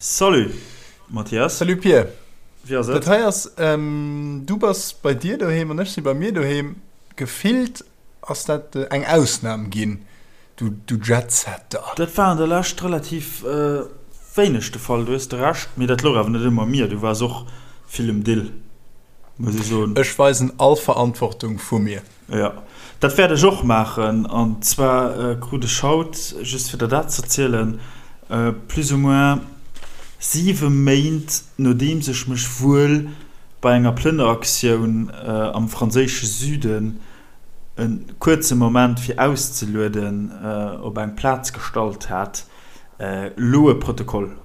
Salut Mathias. Salut Pir. Wéi ass et? Dat hei ass, du bass bei dir doheem an ech si bei mir doheem. Gefillt ass dat eng Ausnam ginn, du du Jetsetter. Dat war an der Lescht relativ wéineg de Fall, du hues de Recht. Mee dat louch awer net ëmmer u mir, du waars och vill um Dill, muss ech soen. Ech weisen all Verantwortung vu mir. Jo, dat wäert ech och maachen. An zwar krut ech haut, just fir der dat ze erzielen, plus ou moins siwe Méint nodeems ech mech wuel bei enger Plënneraktioun am franséische Süden e kuerze Moment fir auszelueden op eng Plaz gestallt hat, elo e Protokoll.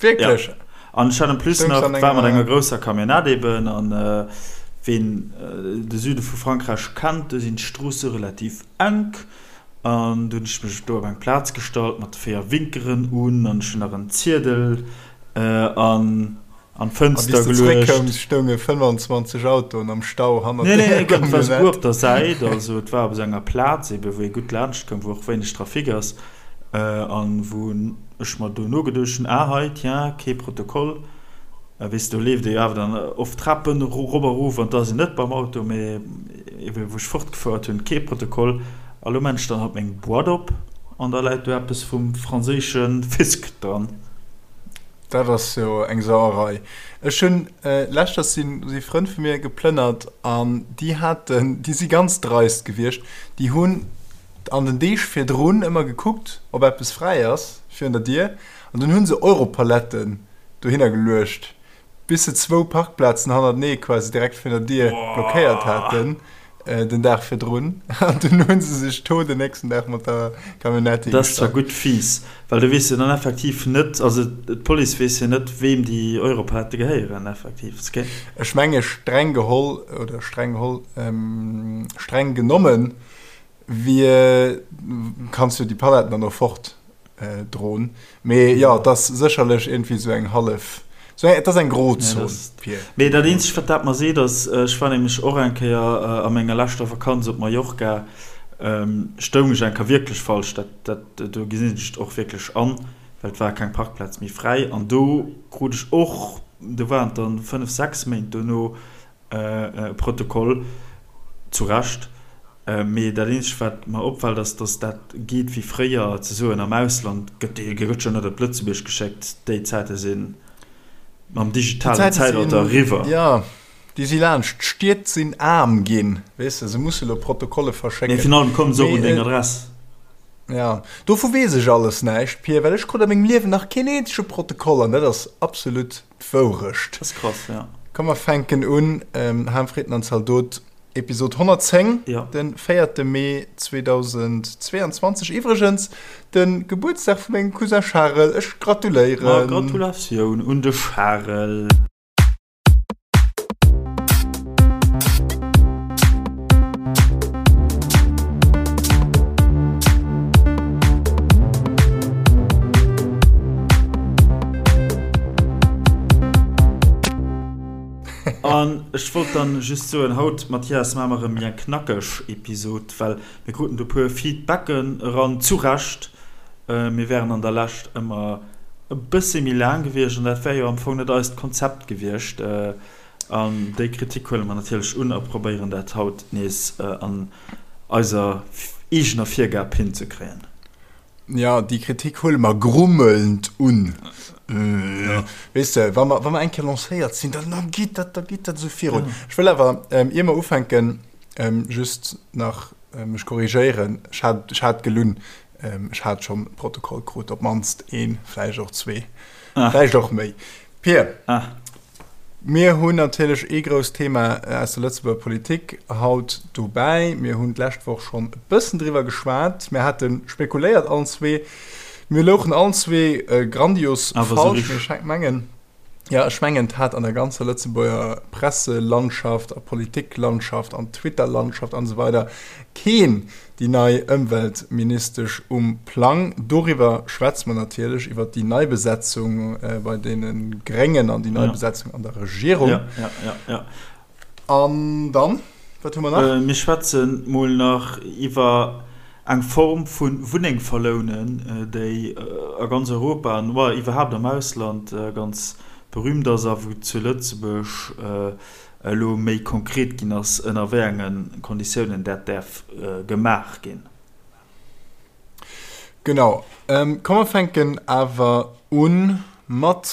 Wierklech? Ja. An ech hat en plus nach, war mat enger grousser Camionnette eben, an ween de Süde vu Frankräich kennt, do sinn d'Stroosse relativ enk, an du hunn ech mech do op eng Plaz gestallt mat de 4 Winkeren un, an ech hunn nach en Ziedel an an d'Fënster geluecht. A wéi s de zeréckkoums, stounge 25 Autoen am Stau hannert der Camionnette. Nee, nee, et war souguer op der Säit, also et war op esou enger Plaz eben, wou ee gutt laanscht koum, wou och wéineg Trafic ass. An wou ech mer dono geduecht hunn, ah hei, tiens, kee Protokoll. Weess de, do leeft ee jo awer dann oft Trapen erop a rof an da ass een net beim Auto, mee ebe wou ech fortgefouert hunn, kee Protokoll. A lo maan ech dann haut meng Boîte op an da läit do eppes vum franséische Fisc dran. Dat ass jo eng Sauerei. Ech hunn leschters si si Frënn vu mir geplënnert an déi haten, déi si ganz dreist gewiescht, déi hunn an den Deeg virdrun ëmmer gekuckt, ob eppes fräi ass virun der Dier, an dunn hu se Europaletten dohinner geluecht, bis se zwou Parkplazen hannertenee quasi direkt virun der Dier blockéiert haten den Dag virdrun. An dunn hu se sech do den nächsten Dag mat der Camionnette Dat ass zwar gutt fies, well du weess jo dann effektiv net, also d'Police weess jo net, weem déi Europalette gehéieren effektiv. Ech menge streng geholl, oder streng geholl, streng genommen, Wie kanns jo déi Paletten dann och fort droen. Mee jo, et ass sécherlech iergendwéi esou eng hallef, esou eng, et ass eng Grozon, Pir. Mee dat eenzegt, wat dat mer seet, ass, ech war nämlech och eng Kéier a menger leschter Vakanz op Mallorca, stoung ech eng Kéier wierklech falsch, dat, dat, do gesinn ech et och wierklech an, well et war keng Parkplaz méi fräi. An do krut ech och, do waren et dann 5, 6 Méint dono, E Protokoll, zu Recht. Mee dat eenzegt wat mer opfält ass, datt dat geet wéi fréier ze soen, am Ausland gëtt dee gëtt jo net op Lëtzebuerg geschéckt. Déi Zäite si mam digitalen Zäitalter eriwwer. Jo, déi si laanscht. D'Stied sinn aarm ginn, weess de, se musse lo Protokolle verschécken. Mee virun allem komme se och un deng Adress. Jo, dovu weess ech alles näischt, Pir, well ech krut a mengem Liewen nach keen eenzege Protokoll an dat ass absolut D'Wourecht. Dat ass krass, ja. Komm mer fänken un, Ham, Fritten an Zaldot, Episod 110, ja. Den 4. Mee 2022. Iwwregens de Gebuertsdag vu mengem Cousin Charel. Ech gratuléieren. Ma Gratulatioun un de Charel. An ech wollt dann just soen, haut, Mathias, maache mer erëm méi eng knackeg Episod, well mir kruten do e puer Feedbacken eran, zu Recht. Mir wären an der Lescht ëmmer e bëssi méi laang gewiescht an dat wär jo am Fong net eist Konzept gewiescht. An déi Kritik huele mer natierlech un a probéieren dat haut nees an eiser eegener Virgab hinzekréien. Jo, déi Kritik huele mer grummelnd un. Weess de, wa mer, wa mer eng Kéier lancéiert sinn, dann, dann geet dat, da geet dat esou virun. Ech wëll awer, ier mer ufänken, just nach mech korrigéieren. Ech hat, ech hat gelunn. Ech hat schonn e Protokoll krut, op d'mannst een, vläicht och zwee, vläicht och méi. Pir. Mir hunn natierlech ee grousst Thema aus der Lëtzebuerger Politik haut dobäi. Mir hunn d'lescht Woch schonn e bëssen driwwer geschwat. Mir hate spekuléiert allen zwee. Mir louchen allen zwee grandios falsch. Mee ech mengen, jo, ech mengen, et hat an der ganzer Lëtzebuerger Presselandschaft a Politiklandschaft an Twitterlandschaft an esou weider keen déi nei Ëmweltministesch um Plang. Doriwwer schwätze mer natierlech, iwwer déi nei Besetzung bei deene Gréngen an déi nei Besetzung an der Regierung. Ja, ja, ja, ja. An dann, wat hu mer nach? Mir schwätze mol nach iwwer. Eng Form vu Wunneng verlounen, déi a ganz Europa an iwwerhaapt am Ausland ganz berühmt ass a wou zu Lëtzebuerg elo méi konkret ginn ass, ënner wéi enge Konditiounen dat däerf gemaach ginn. Genau. Komm mer fänken awer u mat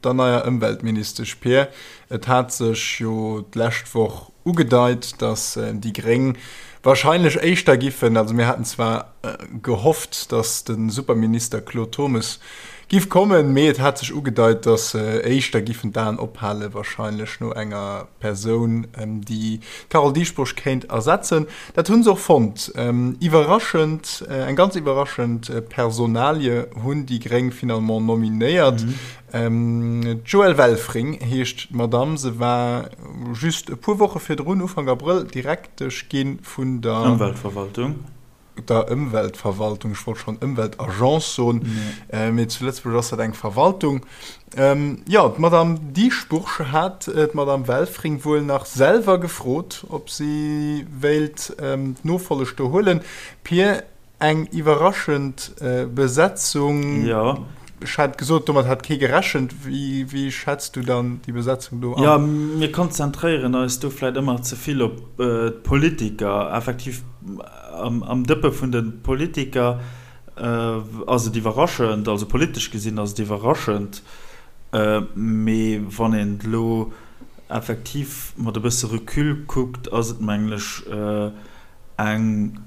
der neier Ëmweltministesch Pir. Et hat sech jo d'lescht Woch ugedeit, datt déi Gréng wahrscheinlech éischter giffen, also mir haten zwar gehofft, datt de Superminister Claude Turmes giff kommen, mee et hat sech ugedeit, datt se éischter giffen d'Aen ophale wahrscheinlech no enger Persoun, déi d'Carole Dieschbourg kéint ersetzen. Dat hu se och fonnt. Iwwerraschend, eng ganz iwwerraschend Personalie hunn déi Gréng finalement nominéiert. D'Joëlle Welfring heescht d'Madamm. Se war just e puer Woche virdrun, Ufank Abrëll, Direktesch gi vun der Ëmweltverwaltung. Der Ëmweltverwaltung, ech wollt schonn Ëmweltagence soen, mee zu Lëtzebuerg ass dat eng Verwaltung. Jo, d'Madame Dieschbourg hat d'Madame Welfring wuel nach selwer gefrot, ob si wéilt d'Nofolleg do huelen. Pir, eng iwwerraschend Besetzung. Jo. Ech hat gesot, domat hat kee gerechent. Wéi schätz du dann déi Besetzung do an? Jo, mir konzentréieren eis do vläit ëmmer ze vill op d'Politiker. Effektiv, am Dëppe vun de Politiker ass et iwwerraschend, also politesch gesinn ass et iwwerraschend. Mee wann een et elo effektiv mat e bësse Recul kuckt, ass et, mengen ech, eng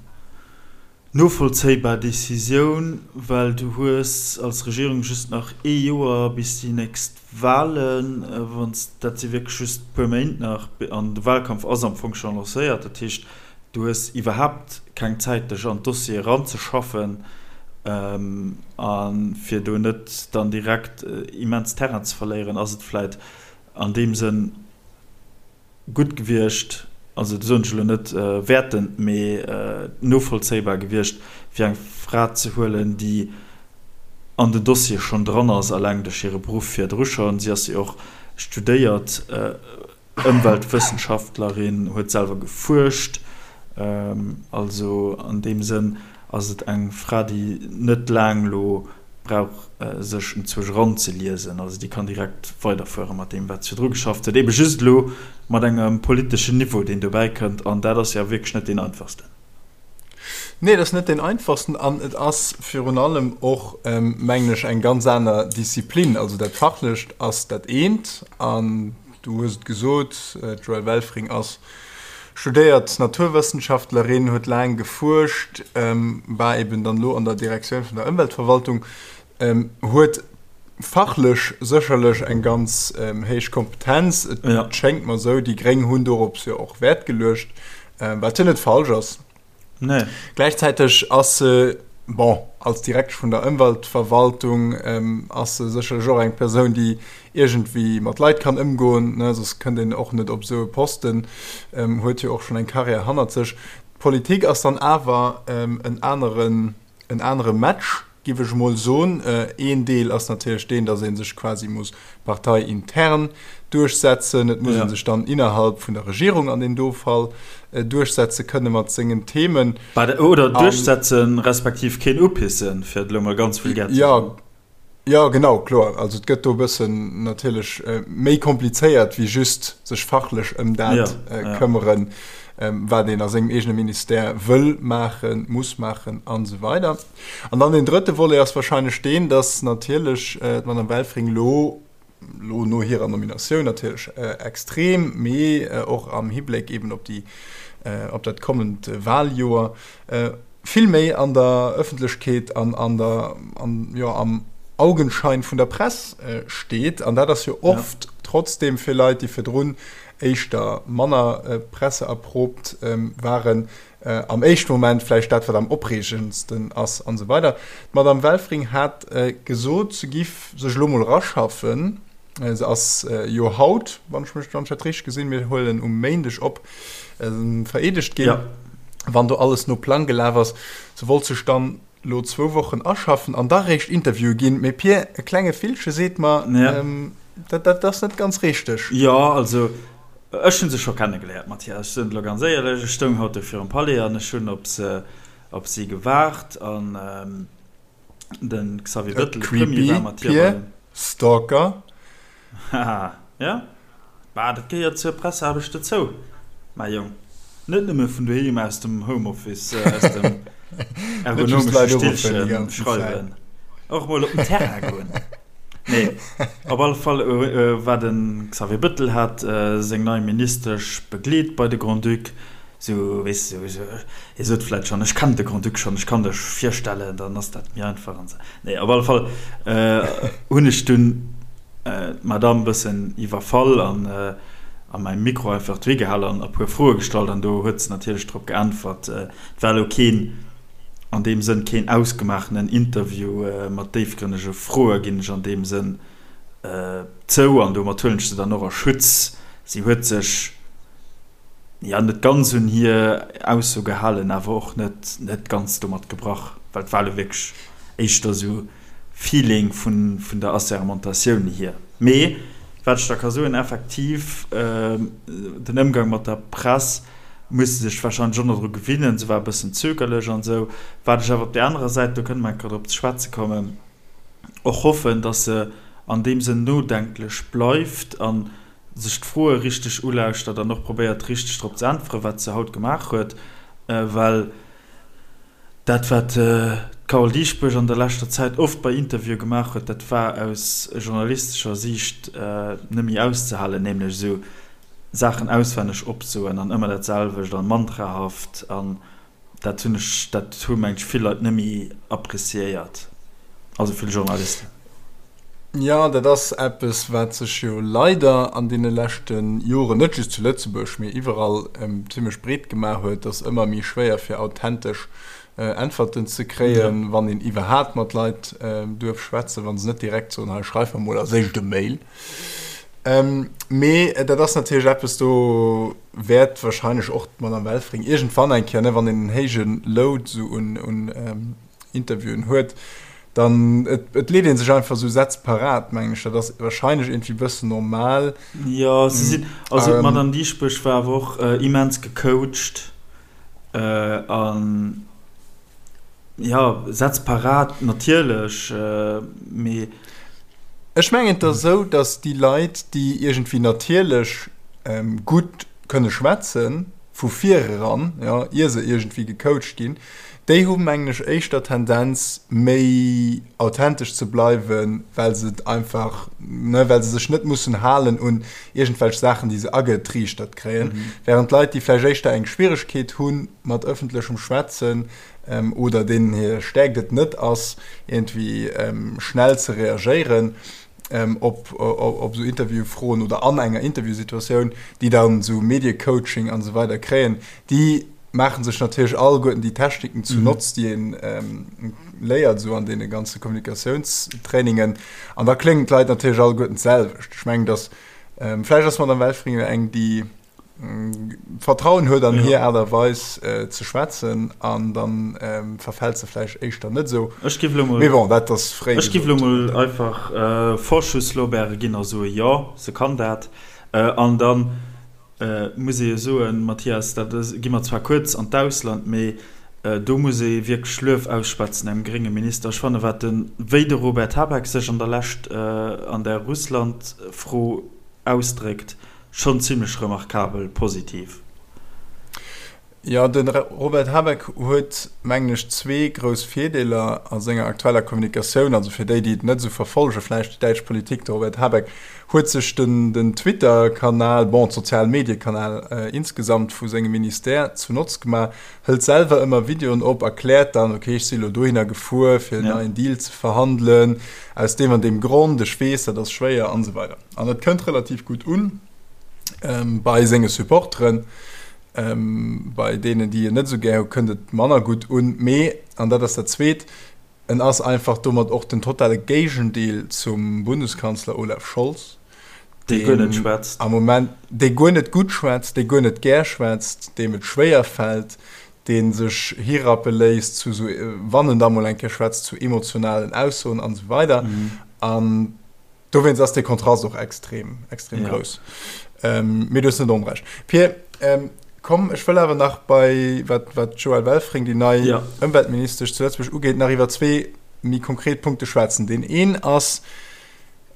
Novollzéibar Decisioun, well du hues als Regierung just nach ee Joer bis déi nächst Wahlen, wann s, dat si wierklech just e puer Méint nach, an de Wahlkampf ass am Fong scho lancéiert. Dat heescht, du hues iwwerhaapt keng Zäit dech an d'Dossiere eranzeschaffen a fir do net dann direkt immens Terrain ze verléieren, ass et vläit an deem Sënn, gutt gewiescht, also dat soen ech elo net wäertend, mee novollzéibar gewiescht, fir eng Fra ze huelen, déi an den Dossier schonn dran ass, alleng duerch hire Beruff virdru schonn. Si ass jo och studéiert Ëmweltwëssenschaftlerin, huet selwer gefuerscht. Also an deem Sënn ass et eng Fra, déi net laang elo brauch sech enzwousch eranzeliesen, also déi kann direkt weiderfuere mat deem wat se virdru geschafft huet, ebe just elo mat engem politeschen Niveau deen dobäi kënnt, an dat ass jo wierklech net deen einfachsten. Nee, et ass net deen einfachsten an et ass virun allem och, mengen ech, eng ganz aner Disziplin. Also dat Fachlecht ass dat eent an du hues et gesot, d'Joëlle Welfring ass Studéiert Naturwëssenschaftlerin, huet laang gefuerscht, war eben dann elo an der Direktioun vun der Ëmweltverwaltung, huet fachlech sécherlech eng ganz héich Kompetenz. Et schéngt mer esou, déi Gréng hunn dorops jo och Wäert geluecht, wat jo net falsch ass. Nee. Gläichzäiteg ass se, bon, als Direktesch vun der Ëmweltverwaltung ass se sécherlech och eng Persoun, déi iergendwéi mat Leit kann ëmgoen, ne, soss kënnt een och net op esou e Posten, huet jo och schonn eng Karriär hannert sech. D'Politik ass dann awer en aneren, en anere Match, giff ech emol soen. Een Deel ass natierlech deen, datt ee sech quasi muss parteiintern duerchsetzen. Et muss ee sech dann innerhalb vun der Regierung an deem do Fall duerchsetze kënne mat sengen Themen. Oder duerchsetzen, respektiv keen upissen, fir et elo mol ganz vulgär ze soen. Jo, genau, kloer. Also et gëtt do e bëssen natierlech méi komplizéiert wéi just sech fachlech ëm dat këmmeren, wat een a sengem eegene Ministère wëll maachen, muss maachen an esou weider. An dann deen drëtte Volet ass wahrscheinlech deen, datt natierlech d'Madame Welfring elo, elo no hirer Nominatioun natierlech extrem, mee och am Hibléck eeben op déi, op dat kommend Wahljoer, vill méi an der Ëffentlechkeet an an der, an, jo, am Augenschein vun der Press steet. An dat ass jo oft trotzdem fir Leit, déi virdrun éischter manner presseerproobt waren, am éischte Moment vläicht dat, wat am opreegendsten ass an esou weider. D'Madame Welfring hat gesot, se giff sech elo mol eraschaffen. Se ass jo haut, wann ech mech, wann ech dat richteg gesinn, mir huelen um Méindeg op, vereedegt ginn. Wann do alles no Plang gelaf ass. Se wollt sech dann lo zwou Wochen aschaffen an da réischt Interviewe ginn. Mee Pir, e klenge Villche seet mer, dat, dat ass net ganz richteg. Jo, also ech hu se scho kennegeléiert, Mathias, ech soen et elo ganz éierlech. Ech stoung haut do virum Palais an ech hunn op se. op si gewaart an de Xavier Bettel, de Premier, war mat hir bei den. Stalker. Haha, ja, bah, dat gehéiert zur Presseaarbecht dozou, mäi Jong. Net nëmme vun doheem aus dem Homeoffice, aus dem ergonomesche Stillche schreiwen, och mol op den Terrain goen. Nee, op alle Fall war de Xavier Bettel hat seng nei Ministesch begleet bei de Grand-Duc. Sou, weess de, sou, hie sot vläit schonn, ech kennen de Grand-Duc schonn, ech kann dech virstellen, dann ass dat méi einfach an esou. Nee, op alle Fall hunn ech dunn d'Madame e bëssen iwwerfall an a mäi Mikro einfach dohi gehal an e puer Froe gestallt an do huet se natierlech drop geäntwert. Et war elo keen, an deem Sënn, keen ausgemaachenen Interview mat déifgrënnege Froe, ginn ech an deem Sënn zou an domat huelen ech se dann och a Schutz. Si huet sech. jo, net ganz un hir Ausso gehalen, awer och net net ganz domat gebrach, well et war elo wierklech éischter esou Feeling vun vun der Assermentatioun hier. Mee wat ech da ka soen, effektiv, den Ëmgang mat der Press muss se sech warscheinlech och nach dru gewinnen, se war e bëssen zögerlech an esou. Wat ech awer op där anerer Säit, do kënne mer eng Kéier drop ze schwätze kommen, och hoffen, datt se an deem Sënn nodenklech bleift an sech d'Froe richteg ulauschtert an och probéiert richteg drop ze äntweren, wat se haut gemaach huet, well dat wat d'Carole Dieschbourg an der leschter Zäit oft bei Interviewe gemaach huet, dat war aus journalistescher Siicht net méi auszehalen, nämlech esou Saachen auswenneg opsoen an ëmmer dat selwecht an mantrahaft an Dat hunn ech, dat hu meng ech vill Leit net méi appreciéiert, also vill Journalisten. Jo, dat ass eppes, wat sech jo leider an deene leschte Joren, net just zu Lëtzebuerg, mee iwwerall zimmlech breet gemaach huet, dass ëmmer méi schwéier fir authentesch Äntwerten ze kréien, wann een iwwerhaapt mat Leit duerf schwätzen, wa se net direkt soen, hei schreif mer mol als éischt e Mail. Mee dat ass natierlech eppes, do wäert wahrscheinlech och d'Madame Welfring iergendwann eng Kéier, ne, wann een en héije Load esou un, un Interviewen huet, dann, et, et leet ee sech einfach esou Sätz parat, mengen ech. Dat ass wahrscheinlech iergendwéi e bëssen normal. Jo, se sinn, also d'Madame Dieschbourg war awer och immens gecoacht an, jo, Sätz parat natierlech, mee. Ech mengen, et ass esou, datt déi Leit, déi iergendwéi natierlech gutt kënne schwätzen, vu vireran, jo, ier se iergendwéi gecoacht ginn, déi hu mengen ech éischter Tendenz, méi authentesch ze bleiwen, well se et einfach, ne, well se sech net mussen halen un iergendwelch Saachen, déi se agetriichtert kréien, wärend Leit, déi vläicht éischter eng Schwieregkeet hu mat ëffentlechem Schwätzen, oder deenen hir Stäerkt et net ass, iergendwéi schnell ze reagéieren op esou Interviewfroen oder an enger Interviewsituatioun, déi dann esou Mediecoaching an esou weider kréien, déi maache sech natierlech alleguerten déi Techniken zu Notz, déi ee léiert esou an deene ganze Kommunikatiounstrainingen. An da kléngen d'Leit natierlech alleguerten d'selwecht. Ech mengen, dass, vläicht ass d'Madame Welfringer eng, déi Vertrauen huet an hir Aart a Weis ze schwätzen an dann verfält se vläicht éischter net esou. Ech giff elo mol, Mee bon, dat ass fréi ech giff elo mol einfach Vorschusslorbeere ginn a soe jo, se kann dat. An dann muss ee jo soen, Mathias, dat gi mer zwar kuerz an d'Ausland, mee do muss ee wierklech Luef ausschwätzen engem grénge Minister. Ech fanne wat de, wéi de Robert Habeck sech an der Lescht an der Russland-Fro ausdréckt, Schonn zimlech remarkabel positiv. Jo, de Robert Habeck huet, mengen ech, zwee grouss Virdeeler a senger aktueller Kommunikatioun. Also fir déi, déi et net esou verfollege vläicht, déi däitsch Politik, de Robert Habeck huet sech den den Twitter-Kanal, bon, d'Sozial-Medie-Kanal insgesamt vu sengem Ministère zu Notz gemaach, hëlt selwer ëmmer Videoen op, erkläert dann, okay, ech si elo dohinner gefuer, fir en neien Deal ze verhandelen, aus deem an deem Grond, ech weess, dat ass schwéier an esou weider. An et kënnt relativ gutt un bei senge Supporteren. Bei deenen, déi en net esou gär hu, kënnt et manner gutt un. Mee, an dat ass dat Zweet, en ass einfach domat och den totale Géigendeel zum Bundeskanzler Olaf Scholz, dee guer net schwätzt am Moment, dee guer net gutt schwätzt, dee guer net gär schwätzt, deem et schwéier fält, dee sech hirappe léisst zu esou, wann en da mol eng Kéier schwätzt, zu emotionalen Aussoen an esou weider. An Dowéinst ass dee Kontrast och extrem, extrem ja. grouss. Ähm, mee du hues net onrecht. Pir, ähm, Komm, ech wëll awer nach bei, wat, wat d'Joëlle Welfring, déi nei ja. Ëmweltministesch zu Lëtzebuerg ugeet, nach iwwer zwee méi konkret Punkte schwätzen. Deen een ass,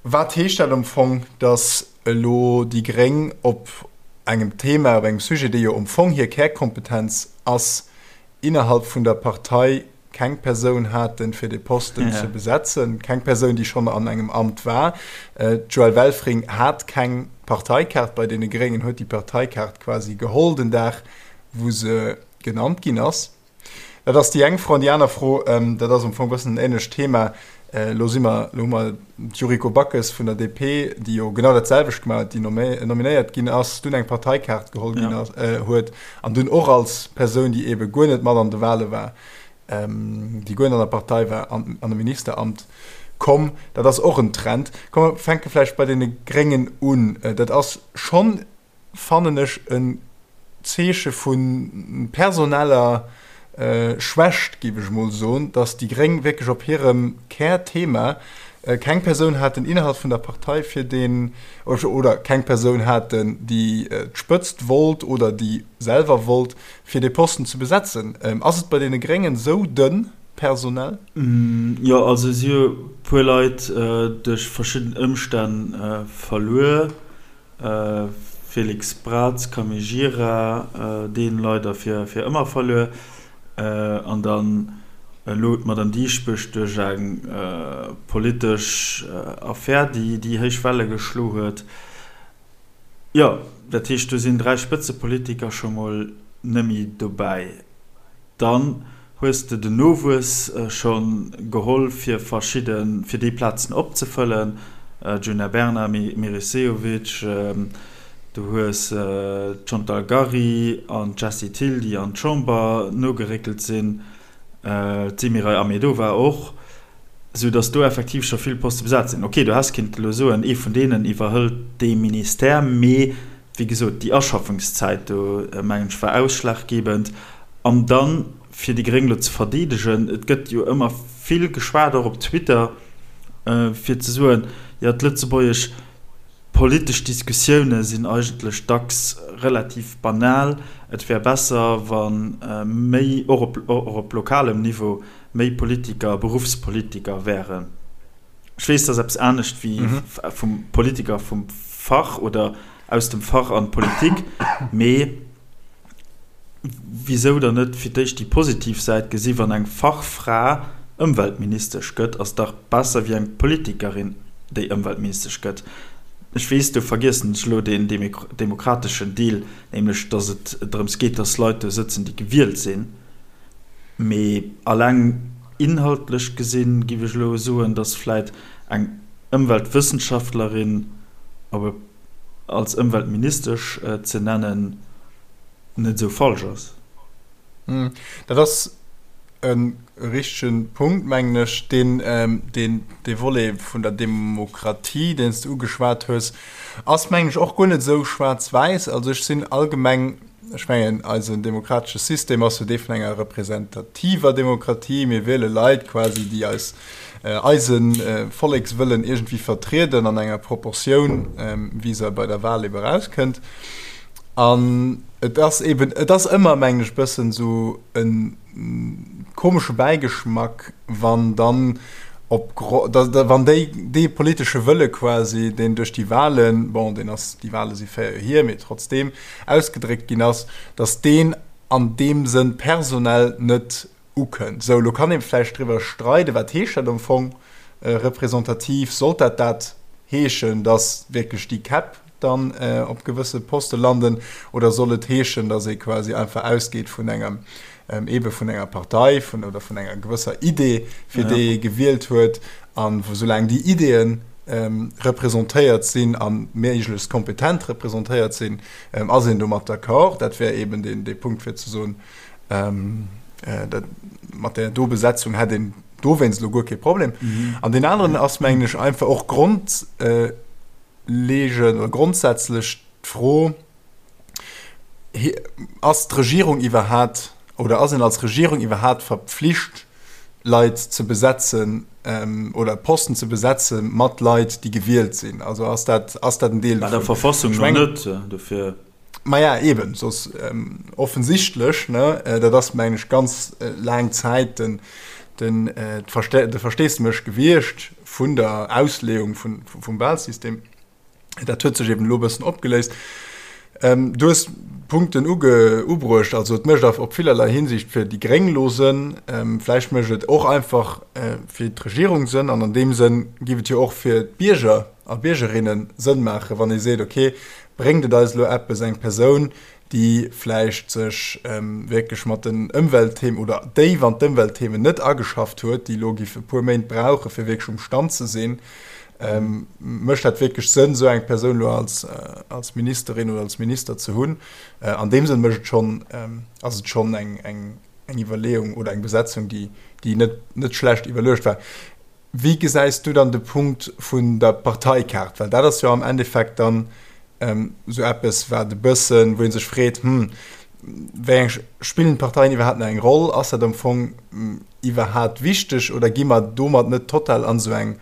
wat heescht dat am Fong, dass elo déi Gréng op engem Thema, op engem Sujet, dee jo am Fong hir Kärkompetenz ass, innerhalb vun der Partei keng Persoun haten, fir dee Posten ze besetzen, keng Persoun, déi schonn an engem Amt war. D'Joëlle Welfring hat keng Parteikaart bei deene Gréngen, huet déi Parteikaart quasi geholl den Dag, wou se genannt ginn ass. Dat ass déi eng Fro. An déi aner Fro, dat ass am Fong e bëssen en änlecht Thema, Elo si mer, elo hu mer d'Yuriko Backes vun der DP, déi jo genau dat selwecht gemaach huet, déi nominéiert ginn ass, dunn eng Parteikaart geholl ginn ass, huet an dunn och als Persoun, déi eebe guer net mat an de Wale war, déi guer net an der Partei war, an an e Ministeramt komm. Dat ass och en Trend. Komm mer fänke vläicht bei deene Gréngen un. Dat ass schonn fannen ech en Zeeche vu personeller Schwächt, géif ech emol soen, datt déi Gréng wierklech op hirem Kärthema keng Persoun haten innerhalb vun der Partei fir deen, oder keng Persoun haten, déi d'Spëtzt wollt oder déi selwer wollt, fir dee Posten ze besetzen. Ass et bei deene Gréngen esou dënn personell? Jo, also si hu e puer Leit duerch verschidden Ëmstänn verluer. Félix Braz, Camille Gira, deen leider fir fir ëmmer verluer, an dann elo d'Madame Dieschbourg duerch eng politesch Affär, déi déi héich Welle geschlo huet. Jo, dat heescht, do sinn 3 Spëtzepolitiker scho mol nëmmi dobäi. Dann hues de den Nowuess scho geholl fir verschidde, fir déi Plazen opzefëllen, Djuna Bernard, Meris Sehovic, du hues d'Chantal Gary an d'Jessie Thill, déi an d'Chamber nogeréckelt sinn, d'Semiray Ahmedova och, sou datt do effektiv scho vill Poste besat sinn. Ok, du häss kinnt elo soen, ee vun deenen iwwerhëlt dee Ministère, mee wéi gesot, déi Aschaffungszäit do, mengen ech, war ausschlaggebend. An dann, fir déi Gréng elo ze verdeedegen, et gëtt jo ëmmer vill geschwat, och op Twitter, fir ze soen, jo, d'lëtzebuergesch politesch Diskussioune sinn eigentlech dacks relativ banal, et wär besser, wa méi, och op, och op lokalem Niveau, méi Politiker Beruffspolitiker wären. Ech weess, dat ass eppes anescht wéi vum Politiker vum Fach oder aus dem Fach an d'Politik, mee wisou dann net fir d'éischt déi positiv Säit gesi, wann eng Fachfra Ëmweltministesch gëtt, ass dach besser wéi eng Politikerin, déi Ëmweltministesch gëtt. Ech weess, do vergiessen ech elo deen demokrateschen Deel, nämlech datt et drëms geet, datt Leit do sëtzen, déi gewielt sinn. Mee alleng inhaltlech gesinn, giff ech elo soen, datt vläit eng Ëmweltwëssenschaftlerin op e als Ëmweltministesch ze nennen, net esou falsch ass. Dat ass e richtege Punkt, mengen ech. Deen, deen, dee Volet vun der Demokratie, deen s de ugeschwat hues, ass, mengen ech, och guer net esou schwaarz-wäiss. Also ech sinn allgemeng Ech mengen, eisen demokratesche System ass jo dee vun enger representativer Demokratie. Mir wiele Leit quasi, déi eis, eise Vollekswëllen iergendwéi vertrieden an enger Proportioun, wéi se bei der Wal ebe erauskënnt. An et ass eben, et ass ëmmer, mengen ech, e bëssen esou e komesche Bäigeschmack, wann dann op, wann déi, dee politesche Wëlle quasi, deen duerch déi Wahlen, bon, deen ass, déi Wahle si 4 Joer hier, mee trotzdeem, ausgedréckt ginn ass, datt deen an deem Sënn personell net ukënnt. Sou, elo kann ee vläicht driwwer streiden, wat heescht dat am Fong representativ? Sollt dat dat heeschen, datt wierklech déi Käpp dann op gewësse Poste landen, oder soll et heeschen, datt ee quasi einfach ausgeet vun engem, eebe vun enger Partei vun, oder vun enger gewësser Idee, fir déi ee gewielt huet, a soulaang déi Ideeën representéiert sinn a méiglechst kompetent representéiert sinn, ass een domat d'accord. Dat wär eeben dee Punkt, fir ze soen, dat mat där do Besetzung hätt een dowéinst elo guer kee Problem. An deen aneren ass, mengen ech, einfach och grondleegend oder grondsätzlech d'Fro, Ass d'Regierung iwwerhat oder ass een als Regierung iwwerhat verpflicht, Leit ze besetzen oder Posten ze besetze mat Leit, déi gewielt sinn? Also ass dat, ass dat en Deel dovun? Bei der Verfassung no net, dofir. Maja, eben, soss offensichtlech, ne, dat ass, mengen ech, ganz laang Zäit den, den, de Versteesdemech gewiescht vun der Ausleeung vun, vum Wahlsystem. Dat huet sech eben elo e bëssen opgeléist. Du hues Punkten uge, ubruecht, also et mécht op villerlei Hinsicht fir déi Gréng elo Sënn, vläicht mécht et och einfach fir d'Regierung Sënn an an deem Sënn géif et jo och fir d'Bierger a Biergerinne Sënn maachen, wann ee seet, okay, Bréngt et eis elo eppes, eng Persoun, déi vläicht sech wierklech mat den Ëmweltthemen oder déif an d'Ëmweltthemen net ageschafft huet, déi elo giff e puer Méint brauchen, fir wierklech um Stand ze sinn, mécht dat wierklech Sënn, esou eng Persoun elo als, als Ministerin oder als Minister ze hunn? An deem Sënn mécht et schonn, ass et schonn eng, eng, eng Iwwerleeung oder eng Besetzung, déi, déi net, net schlecht iwwerluecht war. Wéi gesäis du dann de Punkt vun der Parteikaart? Well dat ass jo am Endeffekt dann esou eppes, wat e bëssen, wou ee sech freet, Hm, wéi eng, spillen d'Parteien iwwerhaapt nach eng Roll? Ass dat am Fong iwwerhaapt wichteg oder gi mer domat net total an esou eng,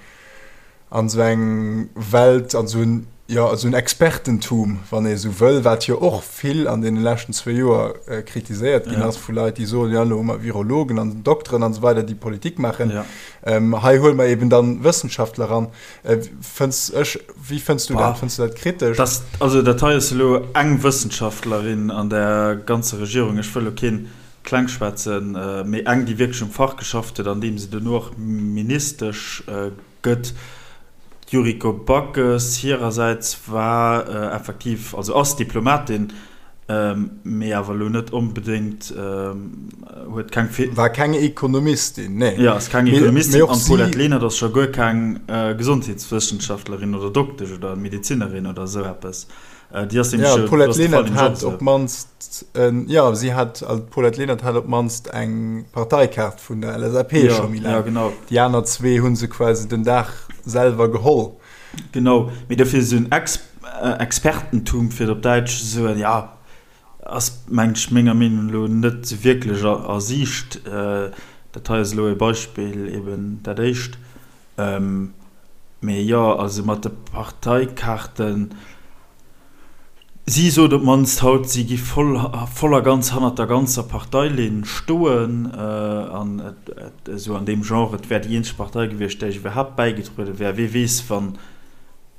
an esou eng Welt, an esou en, jo, esou en Expertentum, wann ee esou wëll, wat jo och vill an deene leschten zwou Joer kritiséiert ginn ass vu Leit, déi soen, jo, elo hu mer Virologen an Dokteren an esou weider, déi Politik maachen. Hei huele mer eben dann Wëssenschaftler ran. Fënns ech, wéi fënns du dat? Fënns du dat kritesch? Das, also dat hei ass elo eng Wëssenschaftlerin an der ganzer Regierung. Ech wëll elo keen klengschwätzen, mee eng, déi wierklech um Fach geschafft huet, an deem se duerno och Ministesch gëtt. D'Yuriko Backes hirersäits war effektiv, also ass Diplomatin, mee awer elo net onbedéngt, huet keng. War keng Ekonomistin, nee. Jo, ass keng Ekonomistin an d'Paulette Lenert ass scho guer keng Gesondheetswëssenschaftlerin oder Doktesch oder Medezinerin oder esou eppes. Déi ass nämlech jo, d'Paulette Lenert hat op d'mannst, jo, si hat, also d'Paulette Lenert hat op d'mannst eng Parteikaart vun der LSAP scho méi laang. Ja, genau. Déi aner zwee hu se quasi den Dag selwer geholl. Genau, mee dofir esou en Ex Expertentum, fir et op Däitsch ze soen, jo, ass, mengen ech, menger Meenung no net esou wierklech a a Siicht. Dat hei ass elo e Beispill, eben dat éischt. Mee jo, also mat de Parteikaarten, si sot op d'mannst haut, si gi voll, voll a ganz hannert der ganzer Parteilinn stoen an et esou an deem Genre, et wär déi eenzeg Partei gewiescht, där ech iwwerhaapt bäigetruede wär. Wee weess, wann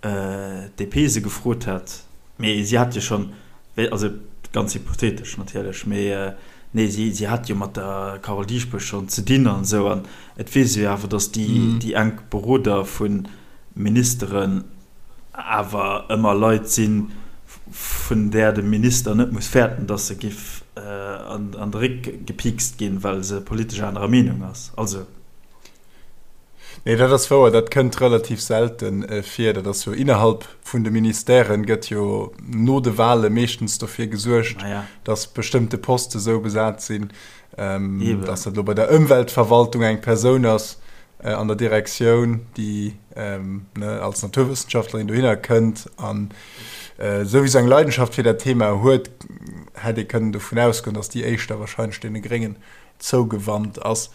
d'DP se gefrot hätt. Mee si hat jo schonn, also ganz hypothetesch natierlech, mee nee, si, si hat jo mat der Carole Dieschbourg schonn ze dinn an esou an Et weess ee jo awer, datt déi enk Beroder vu Ministeren awer ëmmer Leit sinn, vun där de Minister net muss fäerten, datt se giff an de Réck gepiikst ginn, well se politesch anerer Meenung ass. Also. Nee, dat ass wouer, dat kënnt relativ selte vir. Dat ass jo innerhalb vun de Ministèren, gëtt jo no de Wahle meeschtens dofir gesuergt, datt bestëmmte Poste sou besat sinn, Ähm, dass dat lo bei der Ëmweltverwaltung eng Persoun ass äh, an der Direktioun, déi ähm, ne, als Naturwëssenschaftlerin dohinner kënnt an äh, souwisou eng Leidenschaft fir dat Thema huet, hätt ee kënnen dovun ausgoen, dass déi éischter wahrscheinlech deene Gréngen zougewannt ass.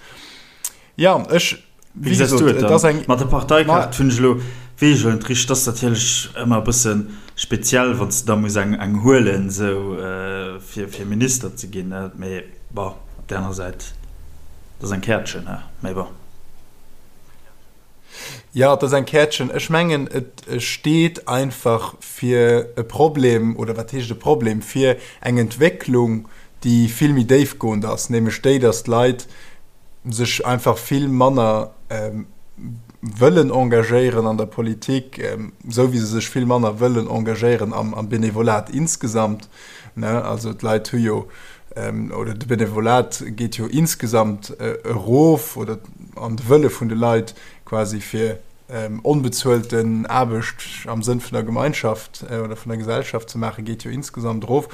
Ja, ech Wéi gesäis du et dann? Mat der Parteikaart hunn ech elo, weess ech elo net richteg, dat ass natierlech ëmmer e bësse speziell, wann s de da muss eng eng huelen esou fir fir Minister ze ginn, mee bon, op där anerer Säit, dat ass eng Käertchen, he, mee bon. Jo, et ass eng Käertchen. Ech mengen, et steet einfach fir e Problem, oder wat heescht e Problem, fir eng Entwécklung, déi vill méi déifgoend ass, nämlech déi, datt d'Leit sech einfach vill manner wëllen engagéieren an der Politik, esou wéi se sech vill manner wëllen engagéieren am Benevolat insgesamt. Also d'Leit hu jo, oder de Benevolat geet jo insgesamt erof, oder an de Wëlle vun de Leit quasi fir onbezuelten Aarbecht am Sënn vun der Gemeinschaft oder vun der Gesellschaft ze maachen, geet jo insgesamt erof.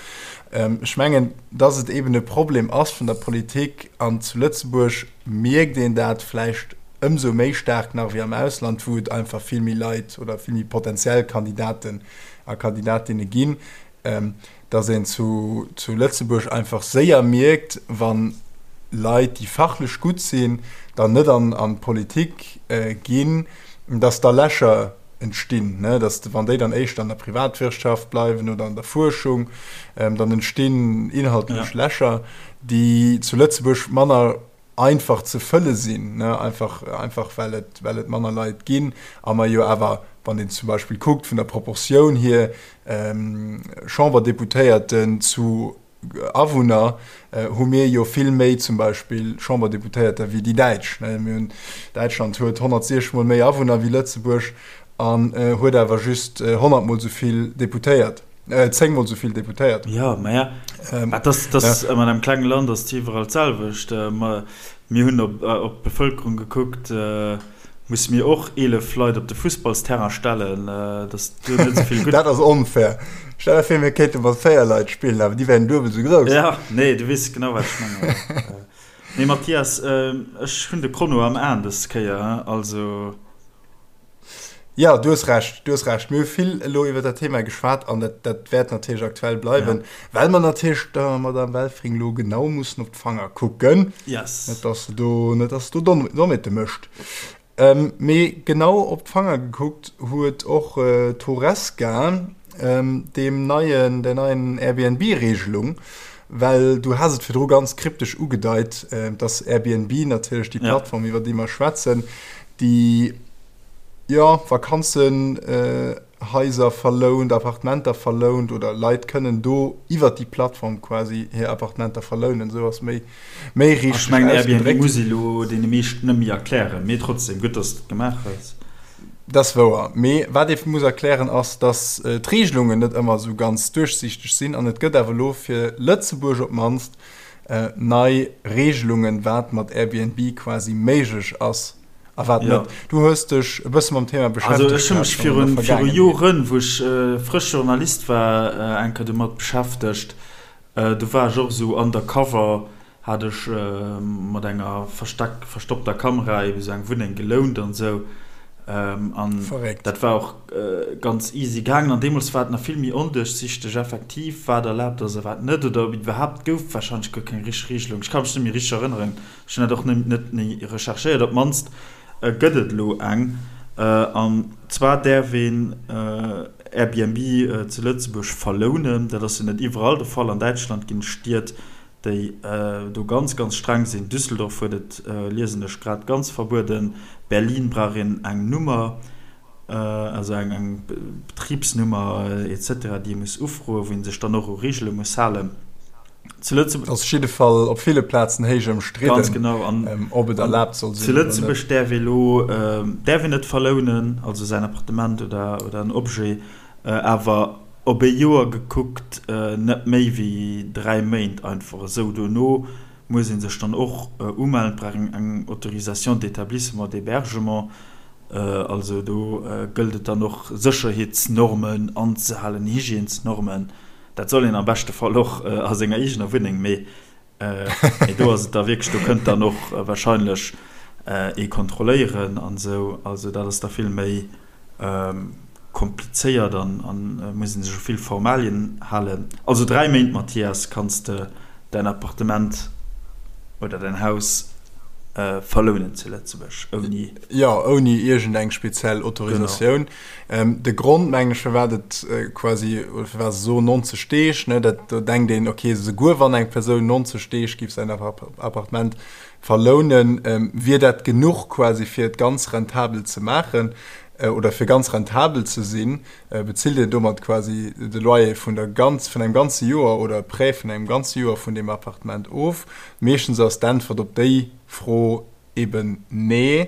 Ech mengen, dass et eben e Problem ass vun der Politik, an zu Lëtzebuerg mierkt een dat vläicht ëmsou méi staark nach wéi am Ausland, wou et einfach vill méi Leit oder vill méi potenziell Kandidaten a Kandidatinne ginn, dass een zu Lëtzebuerg einfach séier mierkt, wa Leit, déi fachlech gutt sinn, dann net an d'Politik ginn, dass da Lächer. entstinn, ne, dass wann déi dann éischter an der Privatwirtschaft bleiwen oder an der Fuerschung, dann entstinn inhaltlech Lächer, déi zu Lëtzebuerg manner einfach ze fëlle sinn, ne, einfach, einfach well et, well et manner Leit ginn a mer jo awer, wann een zum Beispill kuckt vun der Proportioun hier, Chamberdeputéierten zu Awunner, hu mir jo vill méi zum Beispill Chamberdeputéierter wéi déi Däitsch. Ne, mir hunn, Däitschland huet 160 mol méi Awunner wéi Lëtzebuerg an huet awer just 100 mol esou vill Deputéiert. 10 mol esou vill Deputéiert. Jo, maja, dat ass, dat ass ëmmer an engem klenge Land ass et iwwerall d'selwecht. Mir hunn op op d'Bevëlkerung gekuckt, musse mir och 11 Leit op de Fussballsterrain stellen, dass do net esou vill gutt. Dat ass onfair. Stell der vir, mir kéinte mat 4 Leit spillen, awer déi wären duebel esou grouss. Jo, nee, du weess genau, wat ech mengen. Nee, Mathias, ech hunn de Chrono am Aen dës Kéier, also. Jo, du hues Recht, du hues Recht. Mir hu vill elo iwwer dat Thema geschwat an dat, dat wäert natierlech aktuell bleiwen, ja. well mer natierlech der Madame Welfring elo genau mussen op d'Fanger kucken. Yes. Net, dass se do, net, dass se do Dommheete mécht. Ähm, mee genau op d'Fanger gekuckt huet och äh, d'Horesca ähm, deem neien, der neien Airbnb-Regelung, well du has et virdru ganz kryptesch ugedeit, äh, dass Airbnb natierlech déi Plattform, ja. iwwer déi mer schwätzen, déi jo Vakanzenhaiser verlount, Appartementer verlount oder Leit kënnen do iwwer déi Plattform quasi hir Appartementer verlounen, esou ass méi méi richteg ausgedréckt. Ech mengen Airbnb muss ee lo deene meeschten net méi erklären, mee trotzdem, gutt dass de et gemaach hues. Dat ass wouer, mee wat ee muss erklären ass, dass d'Regelungen net ëmmer esou ganz duerchsiichteg sinn an et gëtt awer elo fir Lëtzebuerg op d'mannst nei Regelungen, wat mat Airbnb quasi méiglech ass a wat net. Du hues dech e bësse mam Thema beschäftegt. Also ech hu mech viru viru Joren, wou ech frësch Journalist war, eng Kéier domat beschäftegt. Do war ech och esou undercover, hat ech mat enger versteck verstoppter Kamera ebe sou eng Wunneng gelount an esou. An dat war och ganz easy gaangen. An deemools war et nach vill méi onduerchsichteg effektiv, wat erlaabt ass a wat net, oder ob iwwerhaapt gouf warscheinlech guer keng richteg Regelung. Ech ka mech net méi richteg erënneren. Ech hunn dat och net méi recherchéiert. Op d'mannst gëtt et elo eng. An zwar däerf een Airbnb zu Lëtzebuerg verlounen. Dat ass jo net iwwerall de Fall. An Däitschland ginn et Stied, déi do ganz, ganz streng sinn. Düsseldorf huet et, liesen ech grad, ganz verbueden. Berlin brauch een eng Nummer, also eng Betribsnummer et cetera, déi ee muss ufroen, wou ee sech dann och u Reegele muss halen. Zu Lëtzebuerg. Ass jidde Fall op ville Plazen héich ëmstridden. Ganz genau. An ob et erlaabt soll sinn. Zu Lëtzebuerg däerf ee lo, däerf een net verlounen, also säin Appartement oder, oder en Objet, awer op ee Joer gekuckt net méi wéi 3 Méint einfach esou. Dono muss ee sech dann och umellen, et brauch een eng Autorisation d'établissement d'hébergement, also do gëllt et dann och Sécherheetsnormen anzehalen, Hygiènesnormen. Dat soll een am beschte Fall och a senger eegener Wunneng, mee do ass et da wierklech, do kënnt dann och warscheinlech ee kontrolléieren an esou. Also dat ass da vill méi komplizéiert an muss ee sech u vill Formalien halen. Also 3 Méint, Mathias, kanns de däin Appartement oder däin Haus verlounen zu Lëtzebuerg ouni. Jo, ouni iergendeng speziell Autorisatioun. De Grond, mengen ech, firwat et quasi, oder firwat se soen 90 Deeg, ne, dat, do denkt een, okay, souguer wann eng Persoun 90 Deeg géif säin Appartement verlounen, wier dat genuch quasi fir et ganz rentabel ze maachen oder fir ganz rentabel ze sinn, bezilt een domat quasi de Loyer vun der ganz, vun engem ganze Joer oder e Prêt vun engem ganze Joer vun deem Appartement of. Meeschtens ass d'Äntwert op déi Fro Eben nee.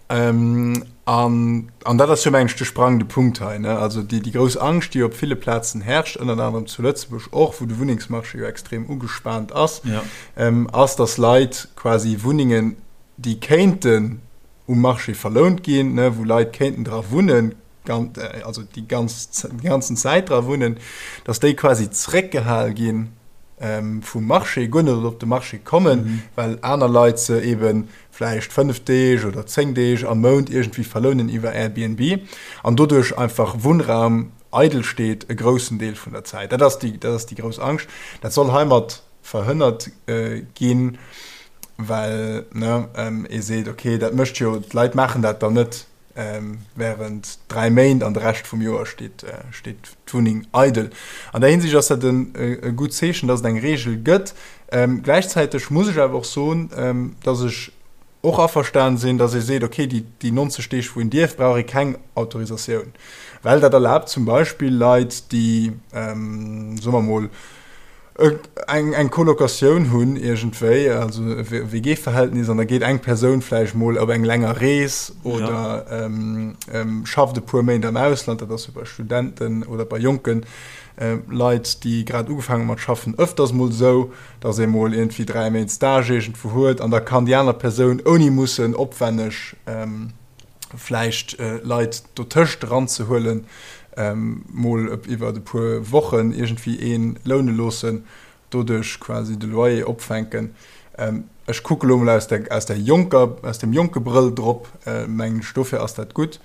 An, an dat ass jo, mengen ech, de sprangende Punkt hei, ne? Also déi, déi grouss Angscht, déi op ville Plazen herrscht, ënnert anerem zu Lëtzebuerg och, wou de Wunnengsmarché jo extrem ugespaant ass, ass, dass Leit quasi Wunnengen, déi kéinten um Marché verlount ginn, ne, wou Leit kéinten dra wunnen, also déi ganz, déi ganzen Zäit dra wunnen, dass déi quasi zréckgehal gi vum Marché, guer net op de Marché kommen, well aner Leit se ebe vläicht 5 Deeg oder 10 Deeg am Mount iergendwéi verlounen iwwer Airbnb an doduerch einfach Wunnraum eidel steet e groussen Deel vun der Zäit. Dat ass déi, dat ass déi grouss Angscht. Dat soll heimat verhënnert ginn, well, ne, ee seet, okay, dat mécht jo, d'Leit maachen dat dann net. Während 3 Méint an de Rescht vum Joer steet steet d'Wunneng eidel. An där Hinsicht ass dat en e gutt Zeechen, dass et eng Reegel gëtt. Gläichzäiteg muss ech awer och soen, dass ech och averstan sinn, dass ee seet, okay, déi déi 90 Deeg wou een dierf, brauch ee keng Autorisatioun, well dat erlaabt zum Beispill Leit, déi, soe mer mol, eng eng Colocatioun hunn iergendwéi, also e WG-Verhältnis, an da geet eng Persoun vläicht mol op eng länger Rees oder schafft e puer Méint am Ausland, dat ass jo bei Studenten oder bei jonke Leit, déi grad ugefaangen hu mat schaffen, ëfters mol esou, datt ee mol iergendwéi 3 Méint Stage iergendwou huet an da kann déi aner Persoun ouni mussen opwänneg vläicht Leit dotëscht eranzehuelen, mol iwwer e puer Wochen iergendwéi ee loune loossen, doduerch quasi de Loyer opfänken. Ech kucke lo mol aus der, aus der jonker, aus dem jonke Brëll drop, mengen ech, dofir ass dat gutt.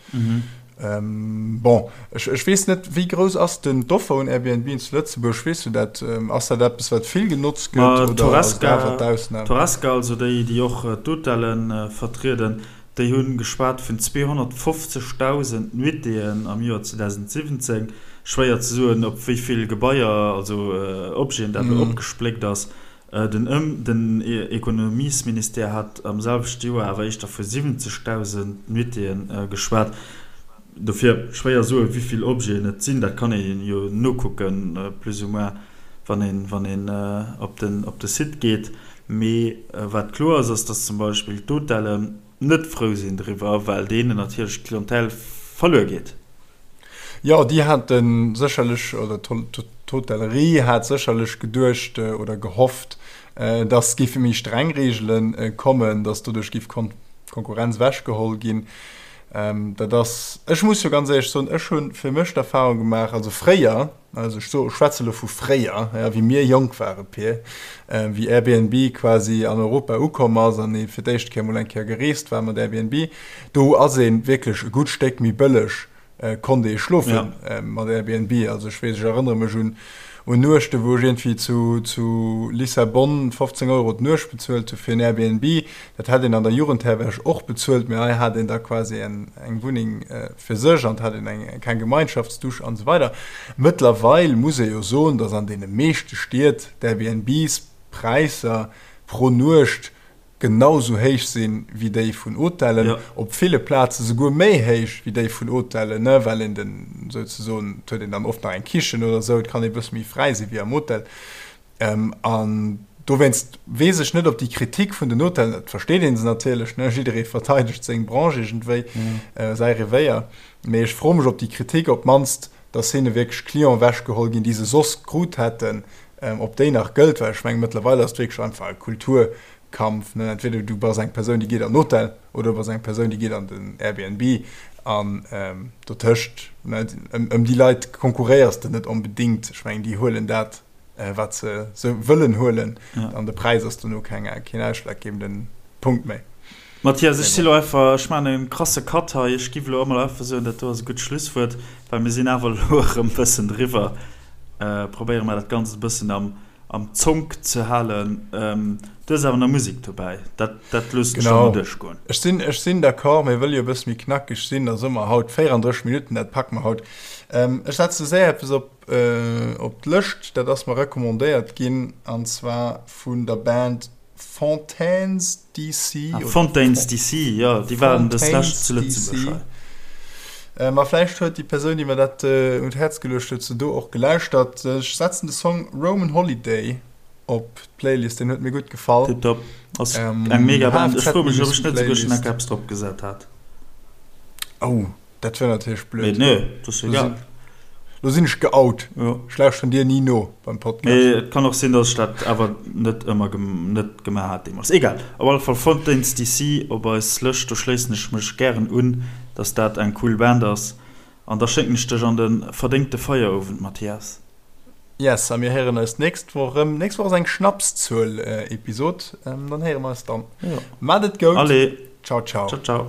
Bon, ech, ech weess net, wéi grouss ass denn d'Offer un Airbnben zu Lëtzebuerg? Weess du dat? Ass dat eppes, wat vill genotzt gëtt oder ass et awer d'Ausnam? D'Horesca, also déi, déi och d'Hotellen vertrieden, Déi hu geschwat vun 250.000 Nuitéen am Joer 2017. Schwéier ze soen, op wéi vill Gebaier, also Objeten dat elo opgespléckt ass. Den Ëm den Ekonomiesministère hat am selwechte Joer awer éischter vu 70.000 Nuitéen geschwat. Dofir schwéier soen, wéi vill Objeten et sinn. Dat kann ee jo nokucken, plus ou moins, wann een wann een op den op de Site geet. Mee wat kloer ass, ass, dass zum Beispill d'Hotellen net frou sinn driwwer, well deenen natierlech d'Clientèle verluer geet. Jo, déi hate sécherlech, oder d'Hotellerie hat sécherlech geduecht oder gehofft, dass géife méi streng Reegele kommen, dass doduerch géif Konkurrenz ewechgeholl ginn. Dat ass, ech muss jo ganz éierlech soen, ech hu fir mech d'Erfahrung gemaach, also fréier, also ech so, schwätze lo vu fréier, ja, wéi mir jonk ware, Pir, wéi Airbnb quasi an Europa ukomm ass an ee fir d'éischt Kéier mol eng Kéier gereest war mat Airbnb, do ass ee wierklech e gutt Stéck méi bëlleg konnt ee schlofe mat Airbnb. Also ech weess, ech erënnere mech un un Nuechte wou ech iergendwéi zu zu Lissabon 15 Euro d'Nuecht bezuelt hu fir en Airbnb. Dat hätt een an der Jugendherberg och bezuelt, mee hei hat een da quasi eng eng Wunneng fir sech an et hat een eng keng Gemeinschaftsdusch an esou weider. Mëttlerweil muss ee jo soen, datt an deene meeschte Stied d'Airbnbs Präisser pro Nuecht genau sou héich sinn wéi déi vun Hotellen, op ville Plaze souguer méi héich wéi déi vun Hotellen, ne, well een den souzesoen, et huet een dann oft nach eng Kichen oder sou, et kann ee bësse méi fräi si wéi am Hotel. An dowéinst weess ech net, ob déi Kritik vun den Hotellen, et versteet ee se natierlech, ne, jidderee verteidegt seng Branche iergendwéi, säi Revéier, mee ech froe mech, ob déi Kritik op d'mannst, dass hinne wierklech Clienten ewechgeholl ginn, déi se soss krut hätten, ob déi nach gëllt, well ech mengen, mëttlerweil ass et wierklech einfach e Kulturkampf, ne, entweder du bass eng Persoun, déi geet an den Hotel, oder du bass eng Persoun, déi geet an den Airbnb, an dotëscht, ne, ëm déi Leit konkurréiers de net onbedéngt. Ech mengen, déi huelen dat, wat se sou wëllen huelen, an de Präis ass dono keng, keen ausschlaggebenden Punkt méi. Mathias, ech si lo einfach, ech maachen e krasse Cut hei, ech giff elo emol einfach soen, dat do ass e gutt Schlusswuert, well mir sinn awer elo erëm e bëssen driwwer. Probéiere mer dat Ganzt e bëssen am, am Zonk ze halen. Du hues awer nach Musek dobäi, dat, dat loossen ech der mol duerchgoen. Ech sinn, ech sinn d'accord, mir wëlle jo e bësse méi knackeg sinn, da soe mer haut 34 Minutten, dat packe mer haut. Ech setze séier eppes op, op d'Lëscht, dat ass mer recommandéiert ginn, an zwar vun der Band Fontaines DC. Ah, Fontaines DC, jo, déi waren dës Lescht zu Lëtzebuerg hei. Ma vläicht huet déi Persoun, déi mer dat un d'Häerz geluecht huet, se do och gelauschtert. Ech setzen de Song Roman Holiday op d'Playlist, deen huet mir gutt gefall. Tiptop, ass eng mega Band. Ech froe mech, ob ech net esouguer schonn enk eppes drop gesat hat. Oh. Dat wär natierlech blöd. Mee nee, dat ass egal. Lo sinn ech geout. Jo. Ech lauschteren dir ni no beim Podcast. Mee et kann och sinn, dass ech dat awer net ëmmer net gemaach hat deemools. Egal. Op alle Fall Fontaines DC op eis Lëscht. Do schléissen ech mech gären un, dass dat eng cool Band ass. An da schécken ech dech an de verdéngte Feierowend, Mathias. Yes, a mir héieren eis d'nächst Woch erëm. D'nächst Woch ass eng Schnapszuel-Episod. Dann héiere mer eis dann. Jo. Maat et goud. Allez. Ciao, ciao. Ciao, ciao.